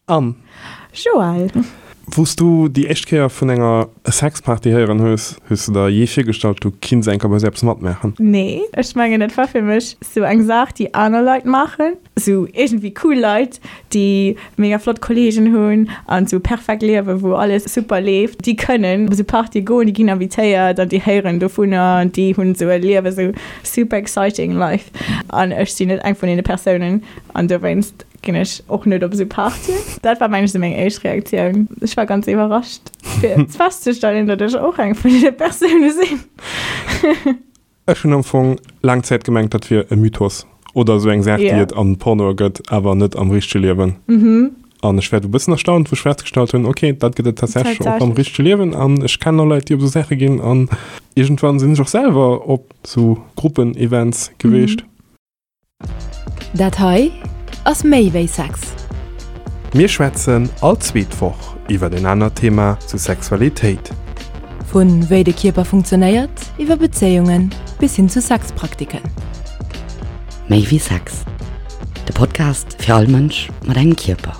Anne. Joël. Wou s du déi éischt Kéier vun enger Sexparty héieren hues, hues de der jee virgestallt, du kinns eng Kéier bei esou eppes matmaachen? Nee, ech mengen et war fir mech sou eng Saach déi aner Leit maachen, sou iergendwéi cool Leit, déi mega flott Kollegen hunn an sou perfekt liewen, wou alles super leeft, déi kënnen op esou Partye goen, déi ginn invitéiert an déi héieren dovunner an déi hunn sou e Liewen, sou super exciting life an ech sinn net eng vun deene Persounen an dowéinst Ginn ech och net op esou Partyen. Dat war mengen ech esou meng éischt Reaktioun. Ech war ganz iwwerrascht fir festzestellen, datt ech och eng vun deene Persoune sinn. Ech hunn am Fong laang Zäit gemengt, dat wier e Mythos oder esou eng Saach, déi et an Pornoe gëtt, awer net am richtege Liewen. An ech war du e bëssen erstaunt, wou ech festgestallt hunn, ok, dat gëtt et tatsächlech och am richtege Liewen an ech kennen och Leit, déi op esou Saache ginn an iergendwann sinn ech och selwer op esou Gruppen-Events geweecht. Dat hei ass méi wéi Sex. Mir schwätzen all zweet Woch iwwer en anert Thema zu Sexualitéit. Vu wéi de Kierper funktionéiert, iwwer Bezéiungen bis hin zu Sexpraktiken. Méi wéi Sex, de Podcast fir all Mënsch mat engem Kierper.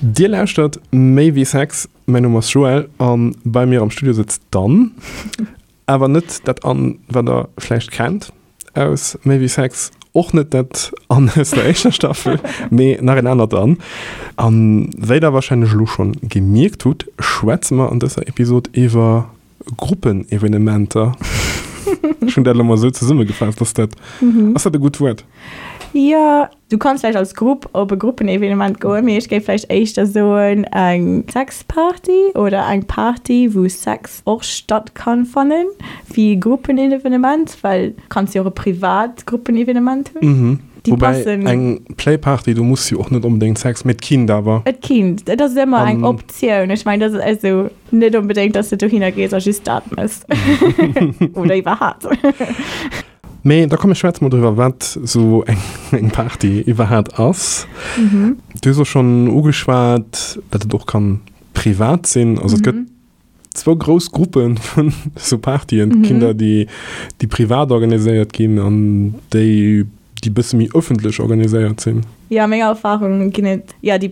Dir lauschtert Méi wéi Sex, mäin Numm ass Joël an bei mir am Studio sëtzt d'Anne. Awer net dat Anne, wat der vläicht kennt aus Méi wéi Sex, och net dat Anne aus der éischter Staffel, mee nach en anert Anne. A wéi der warscheinlech elo schonn gemierkt hutt, schwätze mer an dëser Episod iwwer Gruppenevenementer. Ech hunn dat elo mol esou zesummegefaasst. Ass dat, ass dat e gutt Wuert? Jo. Du kanns vläicht als Grupp op e Gruppenevenement goen, mee ech géif vläicht éischter soen eng Sexparty oder eng Party, wou Sex och statt kann fannen, wéi e Gruppenevenement, well du kanns jo och e privat Gruppenevenement hunn. Déi Woubäi passen. eng Playparty, do muss jo och net onbedéngt Sex, mee et kinnt awer. Et kinnt, et ass ëmmer eng Optioun. Ech mengen, dat ass also net onbedéngt, dass de dohinner gees a just dat mëss. Oder iwwerhaapt. Mee da komm mir schwätze mol driwwer, wat esou eng Party iwwerhaat ass. Du hues och schonn ugeschwat, datt et och kann privat sinn. Also et gëtt zwou grouss Gruppe vun esou Partyen. Et ginn der, déi déi privat organiséiert ginn an déi, déi bësse méi ëffentlech organiséiert sinn. Jo, a menger Erfahrung ginn et jo déi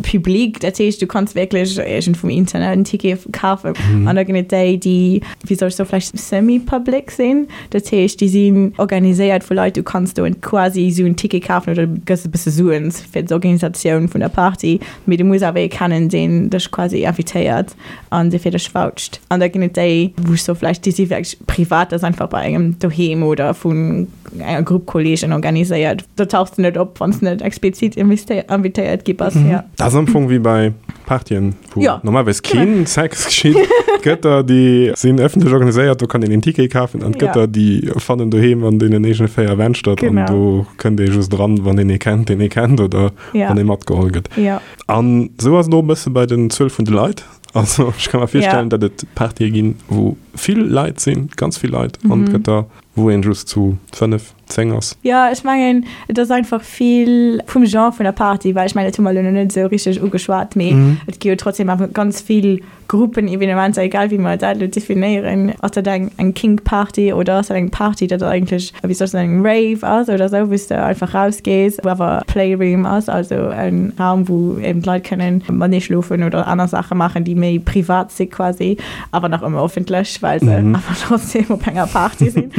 public, dat heescht du kanns wierklech iergend vum Internet en Ticket kafen. An da ginn et déi, déi, wéi soll ech soen, vläicht semi-public sinn, dat heescht déi sinn organiséiert vu Leit, du kanns do quasi esou en Ticket kafen oder du gëss e bësse Suen fir d'Organisatioun vun der Party, mee du muss awer ee kennen, deen dech quasi invitéiert an dee fir dech voucht. An da ginn et déi, wou ech soe vläicht déi si wierklech privat, dat ass einfach bei engem doheem oder vun enger Grupp Kollegen organiséiert. Do tauchs de net op, wann s de net explizit invitéiert gi bass. Ja. Dat ass am Fong wéi bei Partyen, wou ja. normalerweis keen Sex geschitt. Et gëtt der, déi sinn ëffentlech organiséiert, do kann een een Ticket kafen, an et gëtt der, déi fannen doheem an deenen eegene 4 Wänn statt, an do kënnt ee just dran, wann een ee kennt, deen ee kennt, oder ja. wann ee matgeholl gëtt. Ja. An esou ass et och e bësse bei den Zuel vun de Leit. Also ech ka mer virstellen, ja. datt et Partye ginn, wou vill Leit sinn, ganz vill Leit, an et gëtt der, Wou een just zu 5, 10 ass. Jo, ech mengen, et ass einfach vill vum Genre vun der Party, well ech mengen, dat hu mer elo nach net esou richteg ugeschwat, mee et gi jo trotzdem awer ganz vill Gruppenevenementer, egal wéi mer dat elo definéieren. Ass dat eng eng Kink-Party oder ass dat eng Party, dat eigentlech, wéi soll ech soen, eng Rave ass oder esou, wou s de einfach rausgees, wou awer Playroom ass, also en Raum, wou eben d'Leit kënnen matenee schlofen oder aner Saache maachen, déi méi privat si quasi. Awer nach ëmmer offentlech, well se awer trotzdem op enger Party sinn.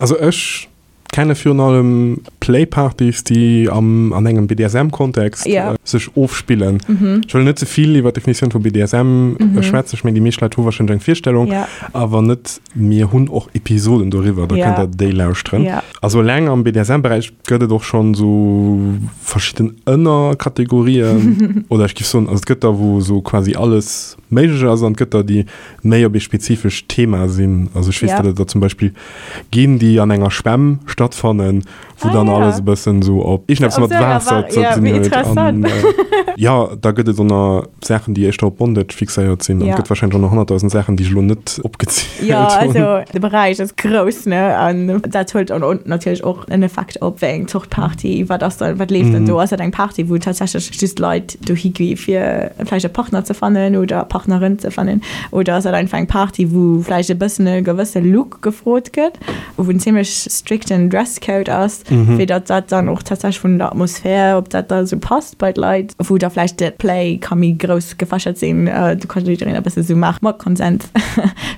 Also ech kenne virun allem Playpartys, déi am, an engem BDSM-Kontext Ja. sech ofspillen. Ech wëll net ze vill iwwer d'Definitioun vu BDSM schwätzen, ech mengen déi meescht Leit hu warscheinlech eng Virstellung, Ja. awer net, mir hunn och Episoden doriwwer, da Ja. kënnt der déi lauschteren. Ja. Also eleng am BDSM-Beräich gëtt et och schonn esou verschidden Ënnerkategorien, oder ech géif soen, also et gëtt der, wou esou quasi alles méiglech ass an et gëtt der, déi méi op ee spezifescht Thema sinn. Also ech weess, Ja. datt et der zum Beispill ginn, déi an enger Schwämm stattfannen, wou Ah, dann ja. alles e bëssen esou op iergendeppes Op mat esou enger Waasser Wa- ze ja, dinn wéi huet. interessant. An jo, da gëtt et och nach Saachen, déi éischter op Bondage fixéiert sinn. An Ja. et gëtt warscheinlech och nach 100.000 Saachen, déi ech elo net opgezielt Ja, hunn. also de Beräich ass grouss, ne? An dat huet dann och natierlech och en Effekt op wéi eng Zort Party, wat ass dann, wat leeft dann do? Ass dat eng Party, wou tatsächlech just Leit dohi gi fir vläicht e Partner ze fannen oder Partnerin ze fannen? Oder ass dat einfach eng Party, wou vläicht e bëssen e gewësse Look gefrot gëtt, wou en zimmlech strikten Dresscode ass? Fir datt dat dann och tatsächlech vun der Atmosphär, ob dat da esou passt bei d'Leit, wou da vläicht de Play ka méi grouss gefächert sinn, do ka jiddereen e bësse sou maache mat Konsens,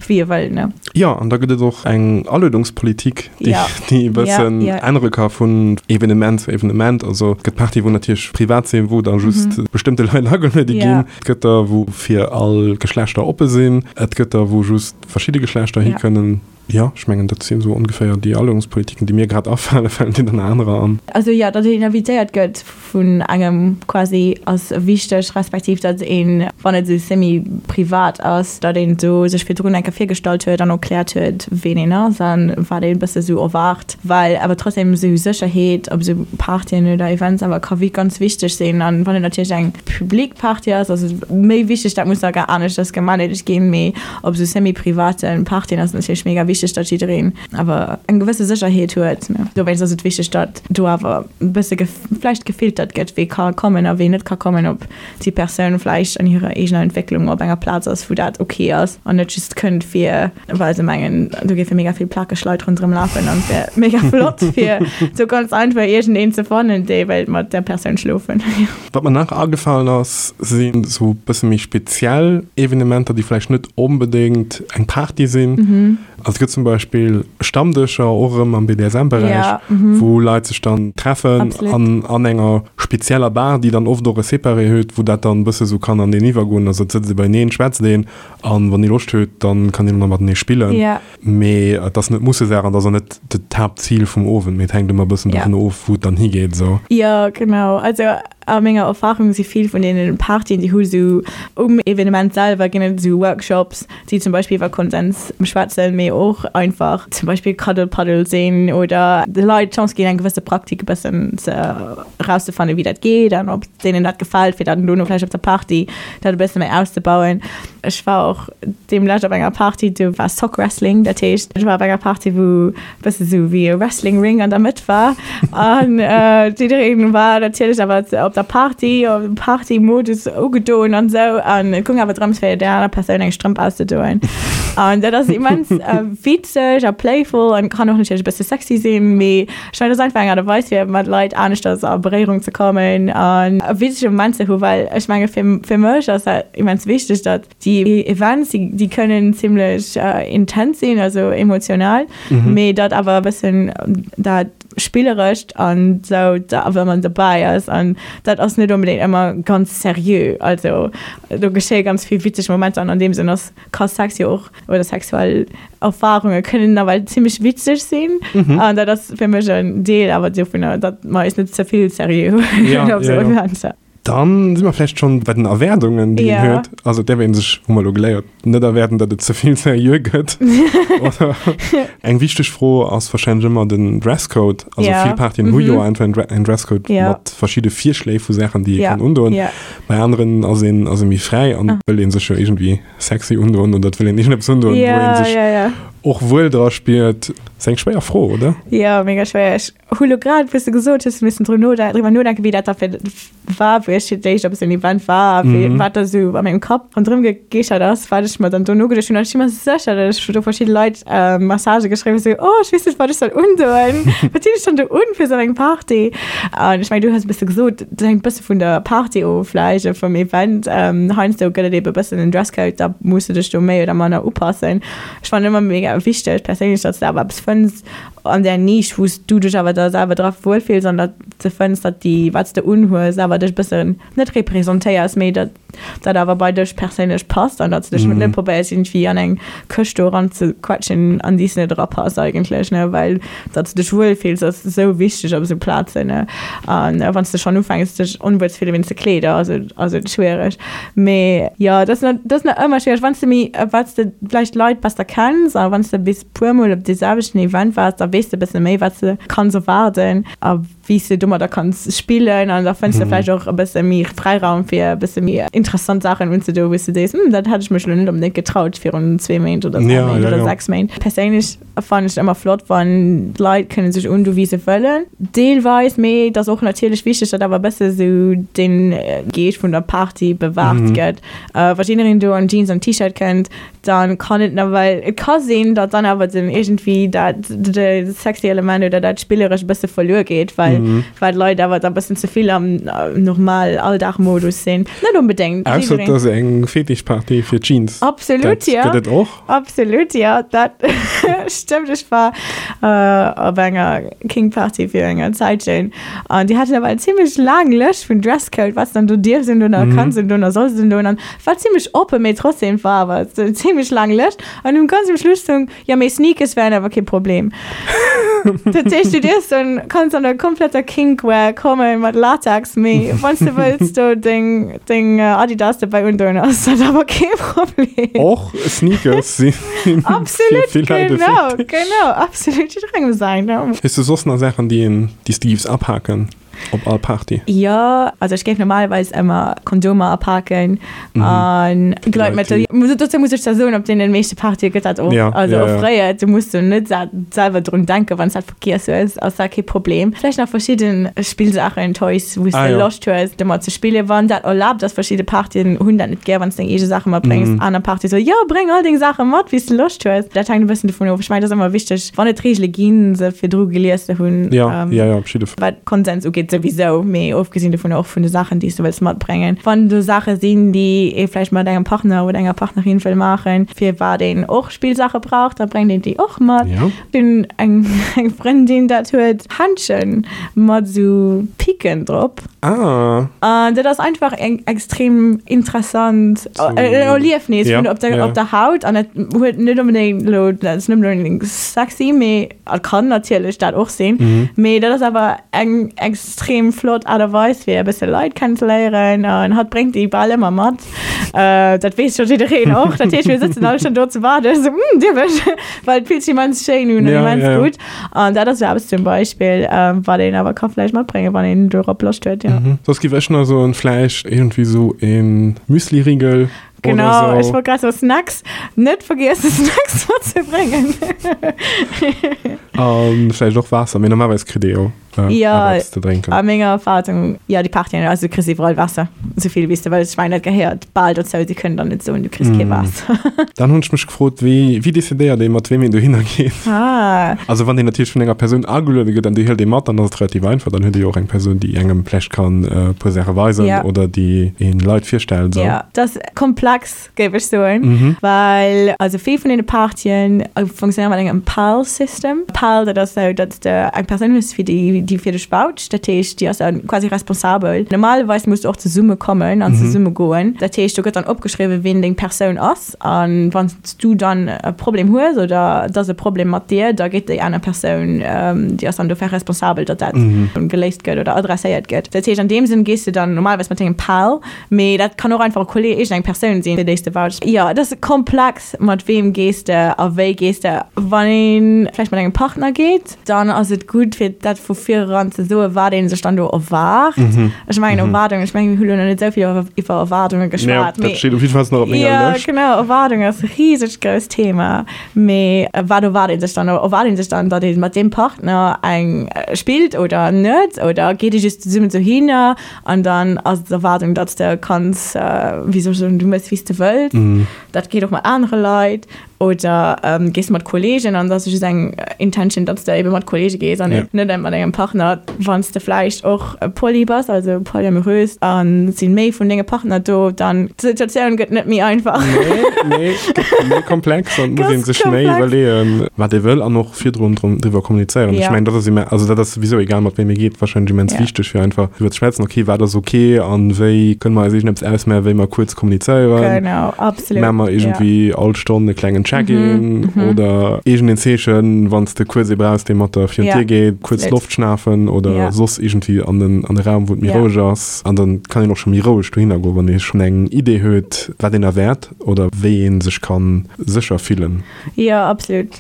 wéi e wëll, ne. Jo, an da gëtt et och eng Aluedungspolitik, déi déi e bëssen ännere ka vun Evenement zu Evenement. Also et gëtt Partye wou natierlech privat sinn, wou da just bestëmmte Leit ageluede ginn. Et gëtt der, wou fir all Geschlechter oppe sinn. Et gëtt der, wou just verschidde Geschlechter hikënnen. Jo, ech mengen, dat sinn esou ongeféier déi Aluedungspolitiken, déi mir grad afalen. Falen dir dann anerer an? Also jo, datt een invitéiert gëtt vun engem quasi ass wichteg, respektiv datt een, wann et esou semi-privat ass, datt een do sech virdrun eng Kéier virgestallt huet an erkläert huet, ween een ass a wat een e bësse esou erwaart, well awer trotzdem esou Sécherheet op esou Partyen oder Events awer ka ganz wichteg sinn. An wann et natierlech eng public Party ass, ass et méi wichteg, dat muss da aneschters gemanagt ginn, mee Op esou semi-privaten Partyen ass et natierlech mega wichteg, datt jiddereen awer eng gewësse Sécherheet huet. Dowéinst ass et wichteg, datt do awer e bësse vläicht gefiltert gëtt, wee ka kommen a wee net ka kommen, ob déi Persoun vläicht an hirer eegener Entwécklung op enger Plaz ass, wou dat ok ass an net just kënnt fir well se mengen, do géife mega vill plakeg Leit ronderëm lafen an et wär mega flott fir sou ganz einfach iergendeen ze fannen, dee wéilt mat där Persoun schlofen. Wat mer nach agefalen ass, sinn esou e bësse méi speziell Evenementer, déi vläicht net onbedéngt eng Party sinn. Also et gëtt zum Beispill Stammdëscher, och erëm am BDSM-Beräich, wou Leit sech dann treffen an an enger spezieller Bar, déi dann oft och e Separé huet, wou dat dann e bësse sou kann aneen iwwergoen. Also et sëtzt ee beieneen, schwätzt een an wann ee Loscht huet, dann kann een och nach matenee spillen. Mee et ass net Mussesaach an et ass och net d'Haaptzil vum Owend, mee et hänkt ëmmer e bëssen dovun of, wou et dann higeet esou. Jo, genau. Also a menger Erfarung si vill vun deene Partyen, déi hu sou um Evenement selwer ginn et esou Workshops, déi zum Beispill iwwer Konsens schwätzen, mee och einfach zum Beispill Cuddle Puddle sinn oder de Leit d'Chance ginn, eng gewësse Praktik e bëssen ze erauszefannen, wéi dat geet an ob deenen dat gefält, fir dann dono vläicht op der Party dat e bësse méi auszebauen. Ech war och deemlescht op enger Party, do war Sock Wrestling, dat heescht, ech war op enger Party, wou e bësse sou wéi e Wrestling Ring an der Mëtt war an jiddereen war natierlech awer op der Party, op Party-Modus ugedoen an esou an et goung awer drëms, fir där aner Persoun eng Strëmp auszedoen. An dat ass immens witzeg a playful an kann och natierlech e bësse sexy sinn, mee ech mengen, dat ass einfach eng Aart a Weis, fir mat Leit aneschters a Beréierung ze kommen an e witzege Moment ze hu, well ech menge fir, fir mech ass dat immens wichteg, datt déi Events, déi, déi kënnen zimlech intens sinn, also emotional, mee datt awer e bëssen dat Spillerescht an esou da awer ëmmer dobäi ass an dat ass net onbedéngt ëmmer ganz seriö. Also do geschéie ganz vill witzeg Momenter an an deem Sënn ass, ka Sex jo och, oder sexuell Erfarunge kënnen nawell zimmlech witzeg sinn. An dat ass fir mech en Deel awer dovunner, datt mer eis net ze vill seriö huelen op esou Eventer. Dann si mer vläicht schonn bei den Erwaardungen, déi een huet. Also et däerf ee sech, hu mer elo geléiert, net erwaarden, datt et ze vill seriö gëtt. Oder eng wichteg Fro ass warscheinlech ëmmer den Dresscode. Also vill Partyen hu jo einfach en Dresscode mat verschidde Virschléi vu Saachen, déi ee kann undoen. Bei aneren ass een ass ee méi fräi an wëll ee sech jo iergendwéi sexy undoen oder et wëll een iergendeppes undoen, wou ee sech och wuel dra spiert. Ass eng schwéier Fro, oder? Jo, mega schwéier. Ech hu lo grad, wou s de gesot hues, missen dru node driwwer nodenken, wéi dat da fir war, wou ech fir d'éischt op esou en Event war a wéi wat da sou a mengem Kapp ronderëm gegeeschert ass, wat ech mer dann do nogeduecht hunn. An ech si mer sécher, datt ech do verschidde Leit Messagë geschriwwen hu, sou, oh, ech weess net, wat ech soll undoen. Wat zinn ech dann do un fir esou eng Party? An ech mengen, du hues e bësse gesot, dat hänkt e bësse vun der Party of vläicht, vum Event. Heiansdo gëtt et ebe e bëssen en Dresscode, da muss de dech do méi oder manner upassen. Ech fannen ëmmer mega wichteg perséinlech, datt s de awer eppes fënns an där Nisch, wou s du dech awer da selwer dra wuelfills an datt s de fënns, datt déi, wat s de unhues, awer dech e bëssen net representéiers, mee datt dat awer bei dech perséinlech passt an datt s de dech net probéiers iergendwéi an eng Këscht do eranzequetschen, an déi s de net erapass eigentlech, ne, well datt s de dech wuelfills ass esou wichteg op esou Plazen, ne. An wann s de schonn ufänks dech onwuel ze fille wéinst de Kleeder, ass et ass et schwiereg. Mee jo, dat ass dat ass nach ëmmer schwiereg, wann s de méi, wat s de vläicht Leit besser kenns a wann s de bis puer mol op dee selwechten Event waars, da weess de e bësse méi wat s de kanns erwaarden a wéi s de domadder kanns spillen an da fënns de vläicht och e bësse méi Fräiraum fir e bësse méi interessant Saachen unzedoen, wou s de sees, hm, dat hätt ech mech elo net onbedéngt getraut virun zwee Méint oder dräi Méint oder sechs Méint. Perséinlech fannen ech et ëmmer flott, wann d'Leit kënne sech undoen, wéi se wëllen, deelweis, mee et ass och natierlech wichteg, datt awer e bësse sou de Geescht vun der Party bewahrt gëtt. Wa jiddereen do an Jeans an T-Shirt kënnt, dann kann et nawell, et ka sinn, datt dann awer den iergendwéi dat de. sexy Element oder dat Spillerescht e bësse verluer geet, well well d'Leit awer da bëssen ze vill am normal Alldagmodus sinn. Net onbedéngt. Ausser et ass eng Fetischparty fir Jeans. Absolut, Dat ja. gëtt et och. Absolut, jo, dat stëmmt. Ech war op enger Kink-Party fir enger Zäitchen an déi haten awer eng zimmlech laang Lëscht vun Dresscode, wat s dann do dierfs undoen a kanns undoen a solls undoen an war zimmlech oppen, mee trotzdem war awer eng zimmlech laang Lëscht an um ganz um Schluss stung, Jo, mee Sneakers wären awer kee Problem. Dat heescht, du dierfs dann, kanns an der kompletter Kinkwear kommen mat Latex, mee wann s de wëlls do deng, deng Adidas dobäi undoen, ass dat awer kee Problem. Och Sneakers si fir Absolut, vill Leit e genau, Fetisch. genau, absolut, jidderengem säin, ne? Hues du soss nach Saachen, déi een, déi s de giffs apaken? Op all Party? Jo, also ech géif normalerweis ëmmer Kondomer apaken an Gleitmëttel. Dozou muss ech zwar soen, op deenen meeschte Partye gëtt dat och also offréiert. Du muss do net selwer drun denken, wann s dat vergiess hues, ass dat kee Problem. Vläicht nach verschidde Spillsaachen, Toys, wou s de Loscht hues domat ze spillen, wann dat erlaabt ass. Verschidde Partyen hunn dat net gär, wann s deng eege Saache matbréngs. Aner Partye soe jo, bréng all deng Saache mat, wéi s de Loscht hues. Dat hänkt e bëssen dovun of. Ech mengen, et ass ëmmer wichteg, wann et Reegele ginn, se virdru gelies ze hunn. Ja, ja, ja, op jidde Fall. Wat Konsens ugeet souwisou, mee ofgesinn dovun och vun de Saachen, déi s de wëlls matbréngen. Wann do Saache sinn, déi ee vläicht mat engem Partner oder enger Partnerin wëll maachen, fir wat een och Spillsaache brauch, da bréngt een déi och mat. Ja. Ech hunn eng Frëndin, dat huet Händschen mat esou Picken drop. Ah. An dat ass einfach eng extrem interessant Erliefnis vun op der, op der Haut. An dat huet net onbedéngt elo, dat ass net onbedéngt sexy, mee et kann natierlech dat och sinn. Mee dat ass awer eng extrem flott Aart a Weis fir e bësse Leit kennenzeléieren. An hatt bréngt déi bal ëmmer mat. Dat weess scho jiddereen och. Dat heescht, mir sëtzen all schonn do ze waarden, esou, Hm, dierf ech? Well et fillt sech immens schéin un an immens gutt. An dat ass jo eppes zum Beispill, wat een awer ka vläicht matbréngen, wann een dorop Loscht huet, jo. Soss giff ech nach soen, vläicht iergendwéi sou e Müsliriegel oder Genau, sou. ech wollt grad soen, Snacks, net vergiessen Snacks matzebréngen. A vläicht och Waasser, mee normalerweis kritt ee jo. Jo, eppes ze drénken. A menger Erfahrung, jo, déi Partyen, also du kriss iwwerall Waasser, esou vill wéi s de wëlls. Ech mengen, dat gehéiert bal dozou, si kënnen dann net soen, du kriss kee Waasser. Dann hunn ech mech gefrot, wéi, wéi decidéiert ee mat weem een dohinner geet? Ah. Also wann een natierlech vun enger Persoun ageluede gëtt an déi hëlt ee mat, dann ass et relativ einfach, dann huet ee jo och eng Persoun, déi engem vläicht kann e puer Saache weisen Ja. oder déi een Leit virstellt esou. Jo, dat ass komplex. géif ech soen, well also vill vun deene Partyen funktionéieren mat engem Pal-System. Pal, dat ass esou, datt s de eng Persoun hues, fir déi, déi fir dech voucht. Dat heescht, déi ass dann quasi responsabel. Normalerweis muss de och zesumme kommen an zesumme goen. Dat heescht, do gëtt dann opgeschriwwen, wien deng Persoun ass. A wann s du dann e Problem hues oder et ass e Problem mat dir, da geet déi aner Persoun, déi ass dann dofir responsabel, datt dat geléist gëtt oder adresséiert gëtt. Dat heescht, an deem Sënn gees de dann normalerweis mat dengem Pal. Mee dat kann och einfach e Kolleg, iergendeng Persoun sinn, fir déi s de vouchs. Jo, et ass komplex, mat weem gees de a wéi gees de. Wann ee vläicht mat engem Partner geet, dann ass et gutt, fir dat vu vireran ze soen, wat ee sech dann do erwaart. Ech mengen, Erwaardungen, ech mengen, mir hu lo nach net esou vill iwwer Erwaardunge geschwat, mee. Dat steet op jiddefalls nach op menger Lëscht. Jo, genau, Erwaardung ass e risegt grousst Thema. Mee wat erwaart ee sech dann? Erwaart ee sech dann, datt ee mat deem Partner eng spillt oder net? Oder geet ee just zesummen dohinner? An dann ass d'Erwaardung, datt s de kanns, wéi soll ech soen, du méchs wéi s de wëlls. Dat geet och mat anere Leit. Oder gees de mat Kolleegen an da ass just eng Intention, datt s de ebe mat Kolleege gees an net mat engem Partner. Wann s de vläicht och poly bass, also polyamorös, a et si méi vun denge Partner do, dann d'Situatioun gëtt net méi einfach. Nee, nee, gëtt méi komplex an et muss ee sech méi iwwerleeën, wat ee wëll an och virdrun driwwer kommunizéieren. Ech mengen, dat ass imme, also dat ass souwisou, egal mat wem ee geet, wahrscheinlech immens wichteg, fir einfach driwwer ze schwätzen, okay, wat ass okay an wéi kënne mer eis iergendeppes ausmaachen, wéi mer kuerz kommunizéieren. Genau, absolut. Maache mer iergendwéi all Stonn e klengen Check-in oder iergendeen Zeechen, wann s de kuerz ee brauchs, dee mat der virun d'Dier geet, kuerz Loft schnafen oder soss iergendwéi an den, an de Raum, wou et méi roueg ass. An dann kann een och scho méi roueg dohinner goen, wann ee schonn eng Idee huet, wat een erwaart oder wéi ee sech ka sécher fillen. Jo, absolut.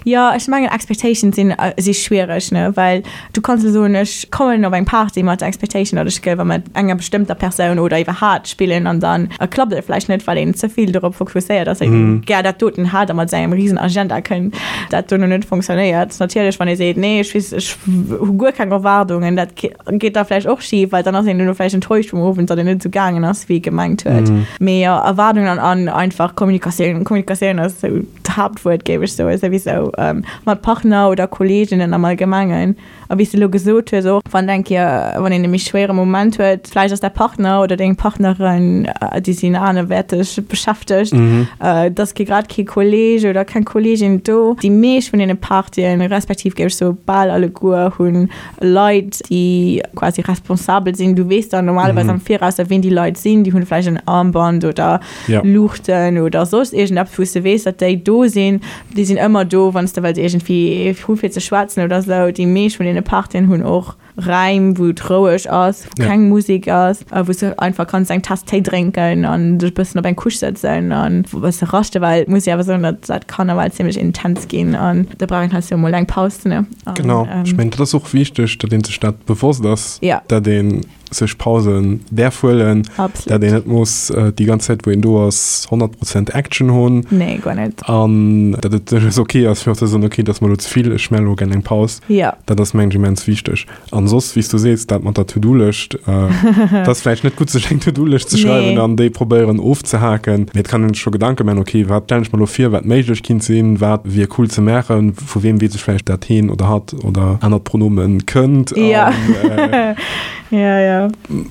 Jo, ech mengen Expectations sinn si schwiereg, ne, well du kanns elo soen, ech kommen op eng Party mat der Expectation, datt ech géif mat enger bestëmmter Persoun oder iwwerhaat spillen an dann klappt et vläicht net, well een ze vill dorop fokusséiert ass, een gär dat doten hätt. hat a mat sengem risen Agenda kënnt, dat dono net funktionéiert. Natierlech wann ee seet, nee ech weess, ech hu guer keng Erwaardungen, dat geet da vläicht och schif, well dann ass een dono vläicht enttäuscht vum Owend, datt en net esou gaangen ass, wéi ee gemengt huet. Mee jo, Erwaardungen an einfach Kommunikatioun. Kommunikatioun ass esou d'Haaptwuert, géif ech soen, souwisou mat Partner oder Kolleeginnen am Allgemengen. A wéi s de elo gesot hues och, wann eng Kéier, wann een e méi schwéiere Moment huet, vläicht ass däi Partner oder deng Partnerin, déi sinn anerwäerteg beschäftegt, et ass kee grad kee Kolleeg oder keng Kolleegin do. Déi meescht vun deene Partyen, respektiv géif ech soe bal alleguer, hu Leit, déi quasi responsabel sinn. Du weess dann normalerweis am Viraus, wien déi Leit sinn. Déi hunn vläicht en Armband oder Luuchten oder soss iergendeppes, wou s de weess, datt déi do sinn. Déi sinn ëmmer do, wann s de wëlls iergendwéi hu fir ze schwätzen oder sou. Déi meescht vun deene Partyen hunn och Räim, wou et roueg ass, wou keng Musek ass, wou s de einfach kanns eng Taass Téi drénken an dech e bëssen op eng Couche sëtzen an e bësse raschten, well et muss ee awer soen, datt dat kann nawell zimmlech intens ginn an da brauch een heiansdo emol eng Paus, ne? Genau, ech mengen, dat ass och wichteg, datt ee sech dat bewosst ass, datt een sech Pausen däerf huelen, dat een net muss déi ganz Zäit wou een do ass 100 Prozent Action hunn. Nee, guer net. An dat et duerchaus ok ass fir och ze soen, ok, dat ass mer elo ze vill, ech maache elo gär eng Paus. Jo. Dat ass mengen ech immens wichteg. An soss, wéi s du sees, dat mat der To-Do-Lëscht, et ass vläicht net gutt sech eng To-Do-Lëscht ze schreiwen an déi probéieren ofzehaken, mee et kann een sech scho Gedanke maachen, ok, wat stellen ech mer elo vir, wat méiglech kinnt sinn, wat wier cool ze maachen, vu weem weess ech vläicht dat heen oder hatt oder anert Pronomen kënnt an ja, ja.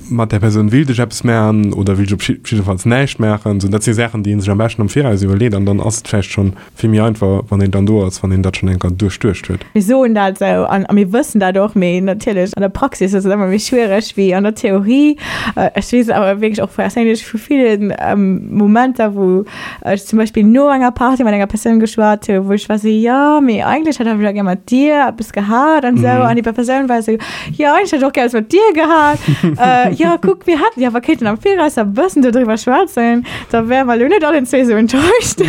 mat där Persoun willt ech eppes maachen oder willt ech op jiddefalls näischt maachen. Sou, dat si Saachen, déi ee sech am beschten am Viraus iwwerleet an dann ass et vläicht schonn vill méi einfach, wann een dann do ass, wann een dat schonn eng Kéier duerchduecht huet. Mir soen dat esou an a mir wëssen dat och, mee natierlech an der Praxis ass et ëmmer méi schwiereg wéi an der Theorie. Ech weess awer wierklech och perséinlech vu ville Momenter, wou ech zum Beispill no enger Party mat enger Persoun geschwat hu, wou ech war sou, jo, mee eigentlech hätt ech awer gär mat dir eppes gehat an esou. An déi Persoun war esou, jo, eigentlech hätt ech och gär eppes mat dir gehat. Jo, kuck, mir hätten jo awer kéinten am Viraus e bëssen dodriwwer schwätzen, da wäre mer elo net allen zwee esou enttäuscht.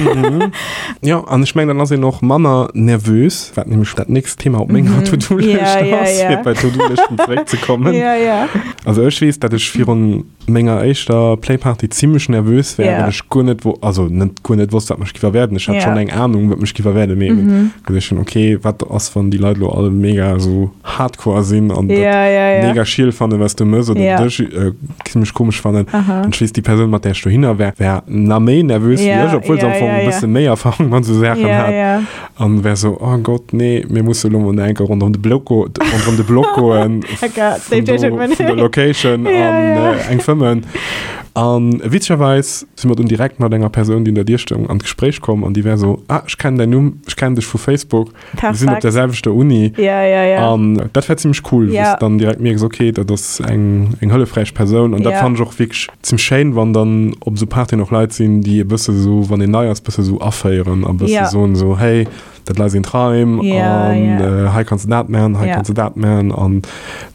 Jo, an ech mengen, dann ass een och manner nervös, wat nämlech dat nächst Thema op menger To-Do-Lëscht ass, fir bei d'To-Do-Lëschten zeréckzekommen. Also ech weess, datt ech virun menger éischter Playparty zimmlech nervös war, well ech guer net wo also net guer net wosst, wat mech giff erwaarden. Ech hat schonn eng Ahnung, wat mech giff erwaarden, mee eben geduecht hunn, okay, wat ass, wann déi Leit elo all mega esou hardcore sinn an dat mega schiel fannen, wat s du mëss oder dech zimmlech komesch fannen. An ech weess, déi Persoun, mat där ech dohinner war, war na méi nervös wéi ech, obwuel se am Fong e bësse méi Erfahrung mat esou Saachen hat. An wär so, oh Gott, nee, mir musse lo mol enke rondrëm de Block go, rondrëm de Block goen, vun do, vun der Location an eng fëmmen. An witzegerweis si mer dunn direkt mat enger Persoun, déi un der Dier stoung, an d'Gespréich komm an déi wär so, ah, ech kennen däin Numm, ech kennen dech vu Facebook, mir sinn op der selwechter Uni. An dat war zimmlech cool, wou s de dann direkt mierks, okay, dat ass eng, eng hëllefräich Persoun. An dat fannen ech och wierklech Zimmlech schéin, wann dann op esou Partyen och Leit sinn, déi e bësse sou, wann een nei ass, bësse sou aféieren a bësse soen sou, hey, dat lei sinn d'Raim an hei kanns de dat man, hei kanns de dat man an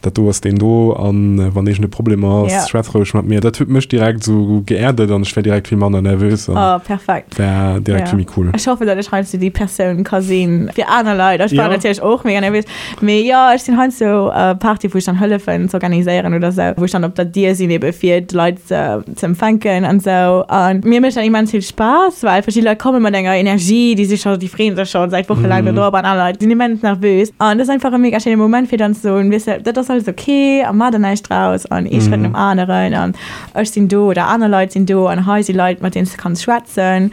dat do ass deen do an wann iergend e Problem ass, schwätz roueg mat mir. Dat huet mech direkt sou geerdet an ech war direkt vill manner nervös an war direkt vill méi cool. Ech hoffen, datt ech heiansdo déi Persoun ka sinn fir aner Leit. Ech war natierlech och mega nervös. Mee jo, ech sinn heiansdo Party wou ech dann hëllefen z'organiséieren oder sou, wou ech dann op der Dier sinn ebe fir d'Leit ze empfänken an sou. An mir mécht dat immens vill Spaass, well verschidde Leit komme mat enger Energie, déi si scho, déi freeën sech scho säit Woche laang dodrop an aner Leit sinn immens nervös. An dat ass einfach e mega schéine Moment fir dann ze soen, weess de, dat ass alles ok a maach der näischt draus an ee Schrëtt nom aneren an ech sinn do oder aner Leit sinn do an hei si Leit mat deenen s de kanns schwätzen.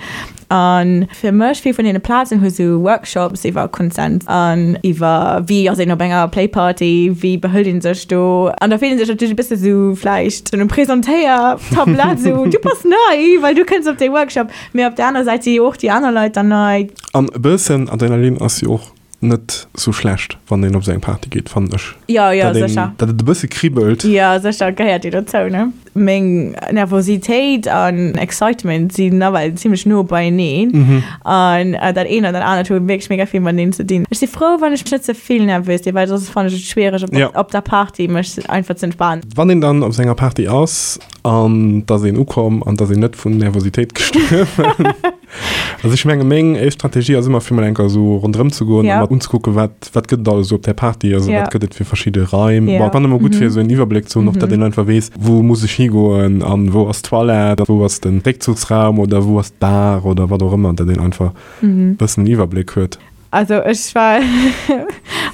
A fir mech, vill vun deene Plazen hu sou Workshops iwwer Consent an iwwer wéi ass een op enger Playparty, wéi behëlt een sech do. An da fillt een sech natierlech e bësse sou vläicht un um Presentéiertablett, sou du bass nei, well du kënns op dee Workshop. Mee op der aner Säit si jo och déi aner Leit dann nei. An e bëssen Adrenalin ass jo och net sou schlecht, wann een op sou eng Party geet, fannen ech. Jo, jo, sécher. Datt et e bësse kribbelt. Jo, sécher, gehéiert jo dozou, ne? Meng Nervositéit an Excitement sinn nawell zimmlech no beieneen. An dat eent an dat anert hu wierklech mega vill mateneen ze dinn. Ech si frou, wann ech net ze vill nervös sinn, well soss fannen ech et schwiereg op, op der Party mech einfach ze entspanen. Wann een dann op sou enger Party ass an et ass een ukomm an et ass een net vun Nervositéit gestuerwen. Also ech menge meng éischt Strategie ass ëmmer fir mol enker esou ronderëm ze goen a mat unzekucken, wat wat gëtt et alles esou op där Party, also wat gëtt et fir verschidde Raim. Bon, et ass ëmmer gutt fir esou en Iwwerbléck ze hunn, och datt een einfach weess, wou muss ech higoen an wou ass d'Toilette, wou ass de Réckzuchsraum oder wou ass d'Bar oder wat och ëmmer, datt een einfach e bëssen en Iwwerbléck huet. Also ech war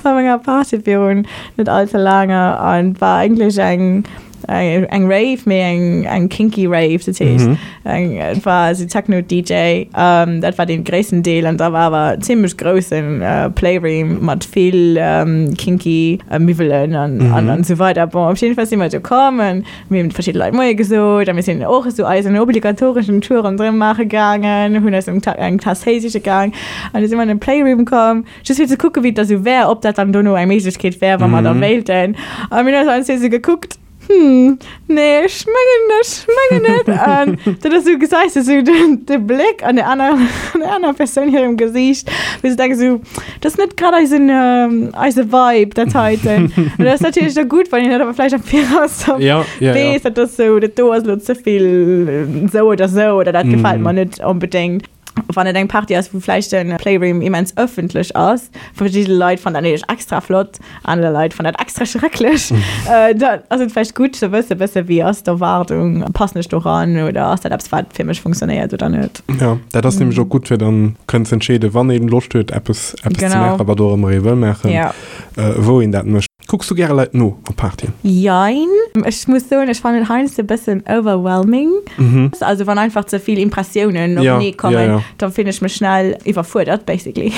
op enger Party virun net all ze laange an war eigentlech eng eng Rave, mee eng eng kinky Rave, dat heescht eng et war esou Techno DJ, dat war dee gréissten Deel an da war awer zimmlech groussen Playroom mat vill kinky Miwwelen an an esou weider. Bon op jidde Fall si mer do komm an Mir hunn verschidde Leit Moie gesot a mir sinn och esou eisen obligatoreschen Tour ronderëm maache gaangen, hunn eis eng Taass Téi siche gaang an du si mer an den Playroom komm, just fir ze kucke wéi et da sou wär, ob dat dann dono eng Méiglechkeet wär, wa mer da wéilten. A mir hunn eis allen zwee sou gekuckt, Hm, nee, ech mengen, ech mengen net. An dat ass sou, gesäis de sou de Bléck an der aner, an der aner Persoun hirem Gesiicht, wou se denken sou, Dat ass net grad eisen, eise Vibe, dat heiten. An dat ass natierlech da gutt, wann een dat awer vläicht am Viraus da Ja, ja, ja. weess, dat ass sou, dat do ass elo ze vill sou oder sou oder dat gefält mer net onbedéngt. Wann et eng Party ass, wou vläicht de Playroom immens ëffentlech ass, verschidde Leit fannen dat natierlech extra flott, aner Leit fannen dat extra schrecklech, dann ass et vläicht gutt ze wëssen, bësse wéi ass d'Erwaardung, passen ech do ran oder ass dat eppes, wat fir mech funktionéiert oder net. Ja, dat ass nämlech och gutt fir dann kënnen ze entscheeden, wann een Loscht huet eppes eppes ze maachen, wat och ëmmer ee wëll maachen, wou een dat mécht. Kucks du gäre Leit no op Partyen? Jein. Ech muss soen, ech fannen et heiansdo e bëssen overwhelming. Also wann einfach ze vill Impressiounen openee kommen, da fillen ech mech schnell iwwerfuerdert basically.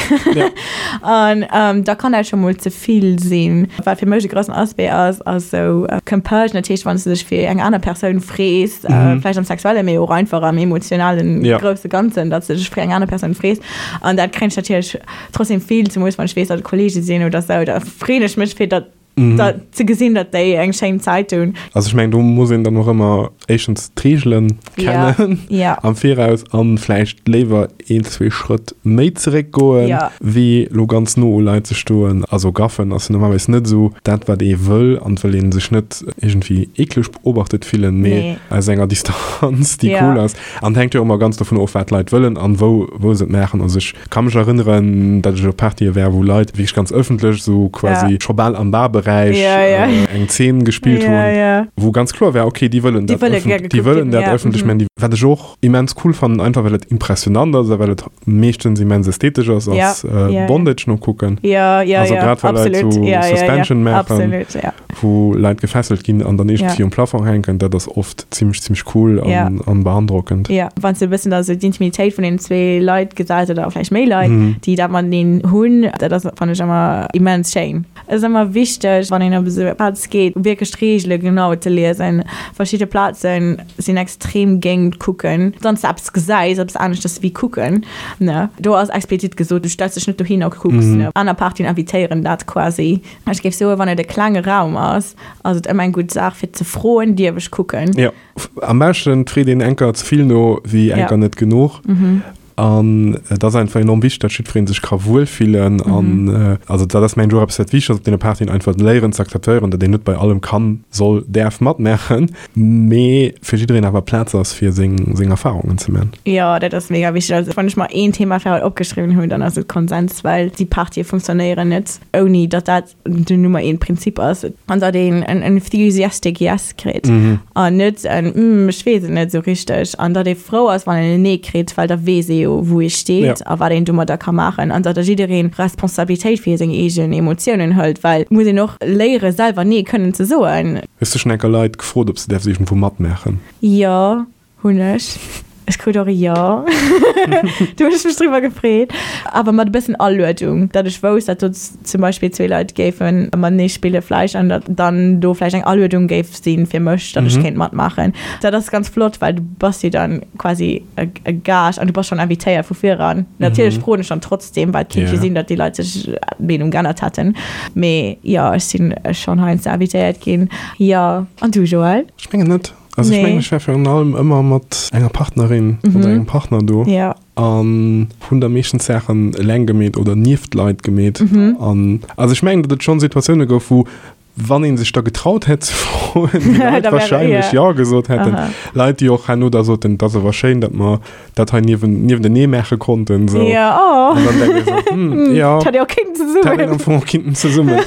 An da kann dat scho mol ze vill sinn. Wat fir mech e groussen Aspect ass, ass esou Compersion, dat heescht wann s du dech fir eng aner Persoun frees, vläicht am Sexuellen, mee och einfach am emotionalen grousse Ganzen, datt s du dech fir eng aner Persoun frees. An dat kréien ech natierlech trotzdem vill, zemools wann ech weess, datt et Kollege sinn oder sou, da freeën ech mech fir datt da ze gesinn, datt déi eng schéin Zäit hunn. Also ech mengen, do muss een dann och ëmmer éischtens d'Reegelen kennen am Viraus an vläicht léiwer een, zwee Schrëtt méi zeréck goen, wéi lo ganz no u Leit ze stoen. Also gaffen ass jo normalerweis net esou dat, wat ee wëll an et wëll ee sech net iergendwéi eekleg beobachtet fillen, mee aus enger Distanz, déi cool ass. An et hänkt jo och ëmmer ganz dovun of, wat d'Leit wëllen an wou, wou se et maachen. Also ech ka mech erënneren, datt ech op Partye war, wou Leit wierklech ganz ëffentlech, esou quasi scho bal am Barberäich, eng Zeen gespillt hunn, wou ganz kloer war, okay, déi wëllen dat ëffentlech, déi wëllen dat ëffentlech maachen. Wat ech och immens cool fannen, einfach well et impressionant ass a well et meeschtens immens ästhetesch ass, ass Bondage nokucken. Also grad wa Leit esou Suspension maachen. wou Leit gefesselt ginn an dann iergendwéi um Plafong hänken, dat ass oft zimmlech, zimmlech cool an, an beandrockend. Jo, wann s de e bëssen da sou d'Intimitéit vun den zwee Leit gesäis oder vläicht méi Leit, déi dat mateneen hunn, dat ass, fannen ech ëmmer immens schéin. Et ass ëmmer wichteg, wann een op esou e Plaz geet, wierklech d'Reegele genau ze liesen. Verschidde Plaze sinn extrem géint kucken. Wann s de eppes gesäis, eppes aneschters wéi kucken, ne, do ass explizit gesot, du stells dech net dohin a kucks, ne. Aner Partyen invitéieren dat quasi. Ech géif soen, wann et e klenge Raum ass, ass et ëmmer eng gutt Saach fir ze froen, Dierf ech kucken? Jo, am beschten freet een enker ze vill no wéi enker net genuch. An et ass einfach enorm wichteg, datt jiddweree sech ka wuelfillen. An also dat ass mengen ech och eppes wat wichteg ass op deene Partyen, einfach léieren ze akzeptéieren, datt een net bei allem kann, soll, däerf matmaachen, mee fir jiddereen awer Plaz ass fir seng seng Erfarungen ze man. Jo, dat ass mega wichteg. Also wann ech mer een Thema fir haut opgeschriwwen hunn, dann ass et Konsens, well déi Partye funktionéieren net. ouni datt dat den Nummer een Prinzip ass, an datt een en enthusiastic Yes kritt an net en Hm, ech weess et net esou richteg, an datt ee frou ass, wann een en Nee kritt, well da weess ee jo, wou ee steet a wat een domadder ka maachen, an datt da jiddereen Responsabilitéit fir seng eegen Emotiounen hëlt, well et muss een och léiere selwer Nee kënnen ze soen. Hues du schonn enker Leit gefrot, ob se däerf iergendwou matmaachen? Jo. Hunn ech. Ech krut och e Jo. Do hunn ech mech driwwer gefreet. Awer mat e bëssen Aluedung, datt ech wousst, datt do zum Beispill zwee Leit géife matenee spille vläicht an datt dann do vläicht eng Aluedung géif si fir mech, datt ech kéint matmaachen. Dat ass ganz flott, well du bass jo dann quasi e Gaascht an du bass schonn invitéiert vu viran. Natierlech froen ech dann trotzdem, well et kéint jo sinn, datt déi Leit sech d'Meenung geännert hätten. Mee jo, ech sinn schonn heiansdo invitéiert ginn. Jo. An du, Joël? Ech mengen net. Also ech mengen, ech war virun allem ëmmer mat enger Partnerin oder engem Partner do an hunn da meeschtens Saachen eleng gemeet oder nieft Leit gemeet. An also ech mengen, datt et schonn Situatioune gouf, wou. Wann ee sech da getraut hätt ze froen, déi Leit wahrscheinlech jo gesot hätten. Leit, déi och herno da soten, et ass awer schéin, datt mer dat hei niewen, niewentenee maache konnten. So. Ja, oh. An dann denke ich so, hm, ja. Dat hätt ee och kéinten zesummen. Dat hätt een am Fong och kéinten zesummen.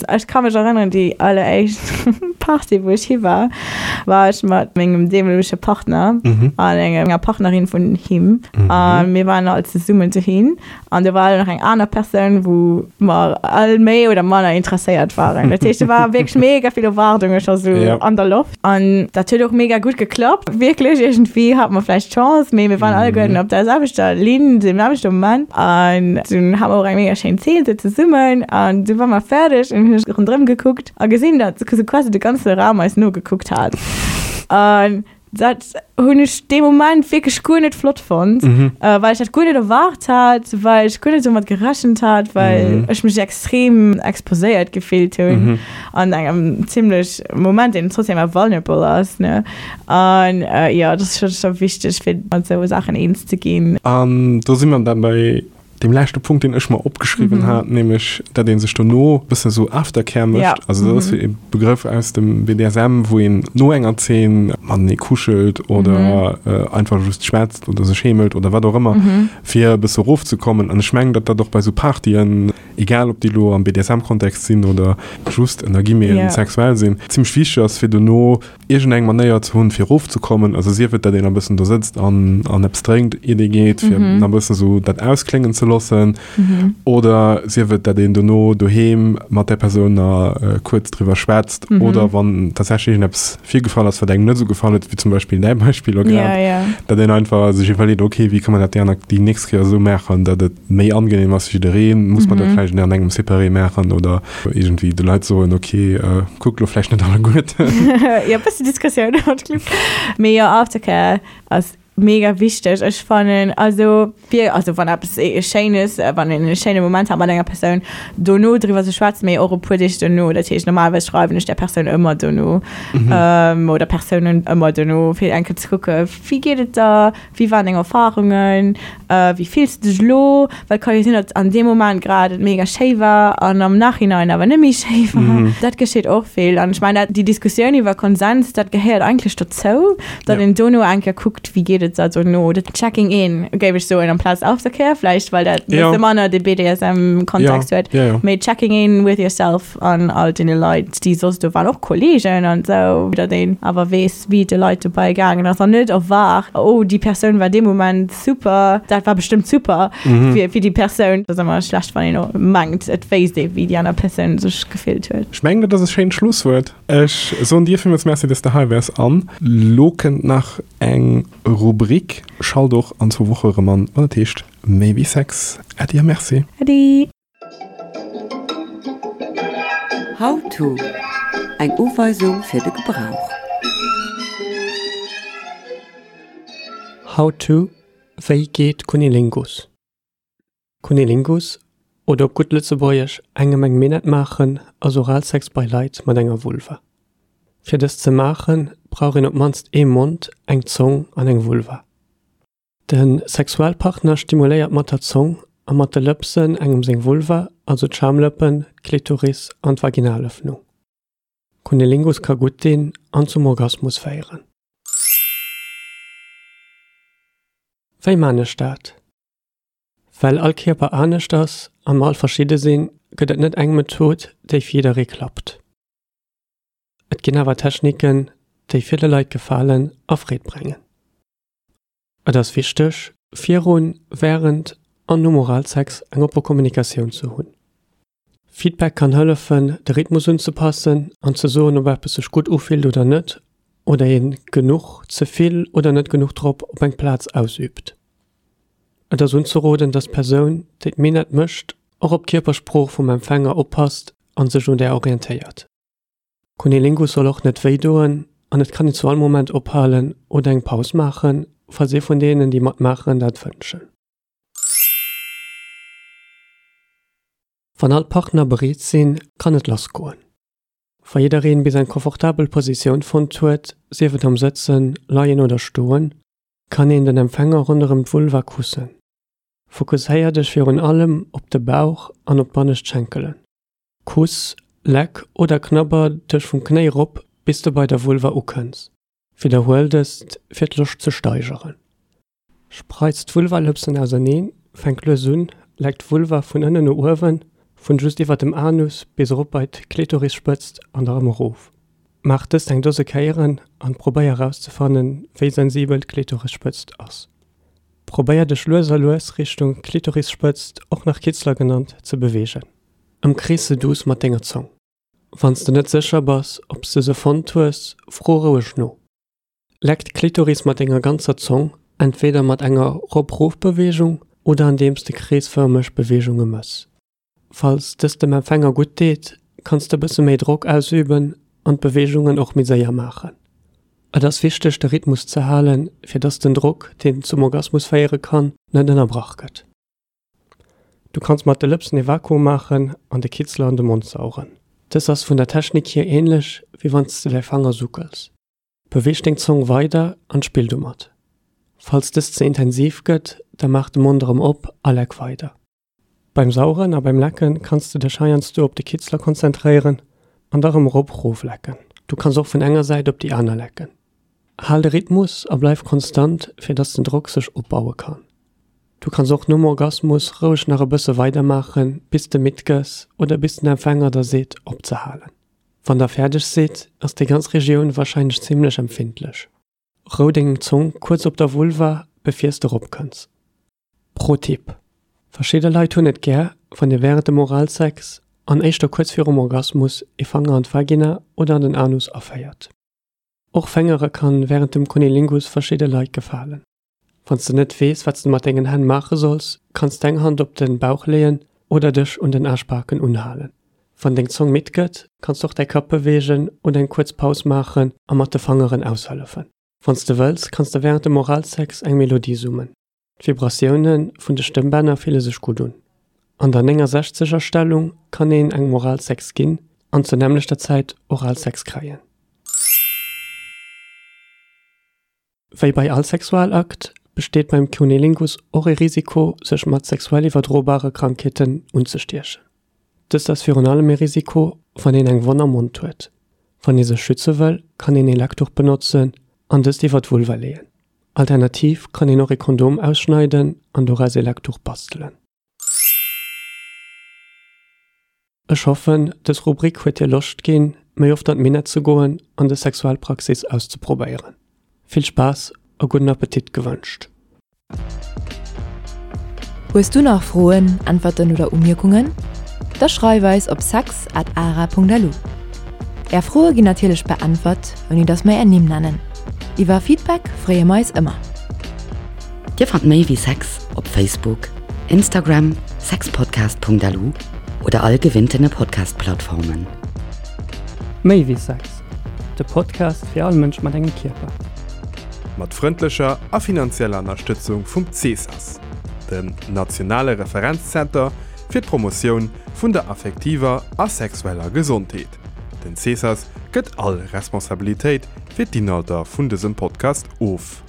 Ech ka mech erënneren, déi alleréischt Party, wou ech hi war, war ech mat mengem deemolege Partner mhm. an enger Partnerin vun him. Mhm. A mir waren all zesummen dohin. An do war nach eng aner Persoun, wou mer all méi oder manner interesséiert waren. Dat heescht, do war wierklech mega vill Erwaardunge scho sou Ja. an der Loft. An dat huet och mega gutt geklappt. Wierklech, iergendwéi hate mer vläicht Chance, mee mir waren alleguerten op der selwechter Linn, dem selwechte Moment. An dunn hate mer och eng mega schéin Zeen sou zesummen. An du war mer fäerdeg an hunn ech ronderëm gekuckt a gesinn, datt sou quasi de ganze Raum eis nogekuckt hat. An Dat hunn ech dee Moment wierklech guer net flott fonnt, mhm. äh, well ech dat guer net erwaart hat, well ech guer net domat gerechent hat, well mhm. ech mech extrem exposéiert gefillt hunn mhm. an engem zimmlech Moment, deen trotzdem awer vulnerable ass. Ne? An äh, ja, dat ass scho scho wichteg, fir mat sou Saachen eens ze ginn. An do si mer dann bei Deem leschte Punkt, deen ech mer opgeschriwwen hat, nämlech dat ee sech dono e bëssen esou Aftercare mécht. Ja. Also dat ass e Begrëff aus dem BDSM, wou een no enger Zeen matenee kuschelt oder einfach just schwätzt oder sech heemelt oder wat och ëmmer, fir e bësse erofzekommen. An ech mengen, datt dat och bei esou Partyen, egal ob déi elo am BDSM-Kontext sinn oder just ënner Guillemeten sexuell sinn, zimmlech wichteg ass, fir dono iergend eng Manéier ze hunn, fir erofzekommen, also sief et, datt een e bëssen do sëtzt an, an eppes drénkt, iert ee geet, fir nach e bëssen esou dat auskléngen ze loossen, oder sief et, datt een dono doheem mat där Persoun nach kuerz driwwer schwätzt, oder wann tatsächlech iergendeppes virgefall ass, wat engem net esou gefall huet, wéi zum Beispill däi Beispill elo grad, datt een einfach sech iwwerleet, okay, wéi ka mer dat déi aner, déi nächst Kéier esou maachen, datt et méi angenehm ass fir jiddereen, muss man dat vläicht an engem Separé maachen oder iergendwéi de Leit soen, ok, kuckt lo vläicht net alleguerten. Jo, bëssen Diskussioun haut, Cliff. Mee jo, Aftercare ass mega wichteg. Ech fannen, also fir, also wann eppes Schéines, wann een e schéine Moment hat mat enger Persoun, dono driwwer ze schwätzen, mee och e puer Deeg dono. Dat heescht, normalerweis schreiwen ech där Persoun ëmmer dono, oder Persounen ëmmer dono, fir eng Kéier ze kucke wéi geet et der, Wéi waren deng Erfarungen? Wéi fills de dech elo? Well et ka jo sinn, datt an deem Moment grad et mega schéi war an am Nachhinein awer net méi schéi war. Dat geschitt och vill. An ech mengen, dat, déi Diskussioun iwwer Konsens, dat gehéiert eigentlech dozou, datt een dono eng Kéier kuckt, wéi geet et der dono. Dat Checking in, géif ech soen, amplaz Aftercare vläicht, well dat e bësse manner de BDSM-Kontext huet. Mee checking in with yourself an all deene Leit, déi soss do waren, och Kolleegen an esou, datt een awer weess, wéi et de Leit dobäi gaangen ass an net erwaart, oh déi Persoun war dee Moment super, dat war bestëmmt super fir fir déi Persoun. Dat ass ëmmer schlecht, wann een och mengt, et wéisst ee wéi déi aner Persoun sech gefillt huet. Ech mengen, dat ass e schéint Schlusswuert. Ech soen dir villmools Merci, dass de hei waars an lo kënnt nach eng Rubrik. Schalt och an zwou Woche erëm an, wann et heescht Méi wéi Sex. Äddi a Merci. Äddi. How to, Eng Uweisung fir de Gebrauch. How to, Wéi geet Cunnilingus? Cunnilingus, oder op gutt Lëtzebuergesch engem eng Minett maachen, ass Oralsex bei Leit mat enger Vulva. Fir dëst ze maachen, brauch een op d'mannst ee Mond, eng Zong an eng Vulva. De Sexualpartner stimuléiert mat der Zong a mat de Lëpsen engem seng Vulva, also d'Schamlëppen, d'Klitoris an d'Vaginalëffnung. Cunnilingus ka gutt dinn an zum Orgasmus féieren. Wéi man ech dat? Well all Kierper anescht ass a mer all verschidde sinn, gëtt et net eng Method, déi fir jidderee klappt. Et ginn awer Techniken, déi ville Leit gefalen a Freed brengen. Et ass wichteg, virun, wärend an nom Oralsex eng oppe Kommunikatioun ze hunn. Feedback kann hëllefen, de Rhythmus unzepassen an ze soen, ob eppes sech gutt ufillt oder net, oder een genuch, ze vill oder net genuch Drock op eng Plaz ausüübt. Et ass unzeroden, dass d'Persoun, déi d'Minett mécht, och op d'Kierpersprooch vum Empfänger oppasst an sech un där orientéiert. Cunnilingus soll och net wéi doen an et kann een zu all Moment ophalen oder eng Paus maachen, falls ee vun deenen, déi matmaachen, dat wënschen. Wann all d'Partner bereet sinn, kann et lass goen. Wa jiddereen bis eng komfortabel Positioun fonnt huet, sief et am Sëtzen, Leien oder Stoen, kann een den Empfänger ronderëm d'Vulva kussen. Fokusséier dech virun allem op de Bauch an op d'bannescht Schenkelen. Kuss. Leck oder knabber dech vum Knéi rop bis de bei der Vulva ukënns. Widderhuel dëst fir d'Loscht ze steigeren. Spreiz d'Vulvalëpsen auserneen, fänk lues un, leck d'Vulva vun ënnen no uewen, vun just iwwer dem Anus bis erop bei d'Klitorisspëtzt an da rëm erof. Maach dëst eng Dose Kéieren an probéier erauszefannen, wéi sensibel d'Klitorisspëtzt ass. Probéier dech lues a lues Richtung Klitorisspëtzt, och nach Kitzler genannt, ze beweegen. Ëmkrees se duuss mat denger Zong. Wann s de net sécher bass, ob s de se fonnt hues, fro roueg no. Leck d'Klitoris mat denger ganzer Zong, entweder mat enger Rop-Rof-Beweegung oder andeems de kreesfërmeg Beweegunge mëss. Falls dëst dem Empfänger gutt deet, kanns de bësse méi Drock ausüben an d'Beweegungen och méi séier maachen. Et ass wichteg de Rhythmus ze halen, fir dass den Drock, deen zum Orgasmus féiere kann, net ënnerbrach gëtt. Du kanns mat de Lëpsen ee Vakuum maachen an de Kitzler an de Mond saugen. Dës ass vun der Technik hier änlech wéi wann s de däi Fanger suckels. Beweeg deng Zong weider an spill domat. Falls dëst ze intensiv gëtt, da maach de Mond erëm op a leck weider. Beim Saugen a beim Lecken kanns de dech heiansdo op de Kitzler konzentréieren an da rëm erop rof lecken. Du kanns och vun enger Säit op déi aner lecken. Hal de Rhythmus a bleif konstant fir dass den Drock sech opbaue kann. Du kanns och nom Orgasmus roueg nach e bësse weider maachen bis de midd gëss oder bis den Empfänger der seet opzehalen. Wann der fäerdeg sidd, ass déi ganz Regioun warscheinlech zimmlech empfindlech. Rou deng Zong kuerz op der Vulva, befiers de rop kënns. Pro Tipp, Verschidde Leit hunn et gär, wann dir wärend dem Oralsex, an éischter kuerz virum Orgasmus, ee Fanger an d'Vagina oder an den Anus aféiert. Och Fängere kann wärend dem Cunnilingus verschidde Leit gefalen. Wann s de net weess, wat s de mat dengen Hänn maache solls, kanns d'eng Hand op den Bauch leeën oder dech un den Aarschbaken unhalen. Wann deng Zong midd gëtt, kanns d'och däi Kapp beweegen oder eng kuerz Paus maachen a mat de Fangeren aushëllefen. Wann s de wëlls, kanns de wärend dem Oralsex eng Melodie summen. D'Vibratioune vun de Stëmmbänner fille sech gutt un. An der 69 er Stellung kann een engem Oralsex ginn an zur nämmlechter Zäit Oralsex kréien. Wéi bei all Sexualakt besteet beim Cunnilingus och e Risiko, sech mat sexuell iwwerdrobare Krankheeten unzestiechen. Dëst ass virun allem e Risiko, wann een eng Wonn am Mond huet. Wann ee sech schütze wëll, kann een ee Leckduch benotzen an dëst iwwer d'Vulva leeën. Alternativ kann een och ee Kondom ausschneiden an doraus ee Leckduch bastelen. Ech hoffen, dës Rubrik huet dir Loscht ginn, méi oft an d'Minett ze goen an dës Sexualpraxis auszeprobéieren. Vill Spaass a gudden Appetit gewënscht! Hues du nach Froen, Äntwerten oder Umierkungen? Da schreif eis op sex at ara.lu. Är Froe ginn natierlech beäntwert, ouni dass mer är Nimm nennen. Iwwer Feedback freeë mer eis ëmmer. Dir fannt méi wéi Sex op Facebook, Instagram, sexpodcast.lu oder all gewinntene Podcast-Plattformen. Méi wéi Sex, de Podcast fir all Mënsch mat engem Kierper. Mat frëndlecher a finanzieller Ënnerstëtzung vum CESAS, dem nationale Referenzzenter fir d'Promotioun vun der affektiver a sexueller Gesondheet. Den CESAS gëtt all Responsabilitéit fir d'Inhalter vun dësem Podcast of.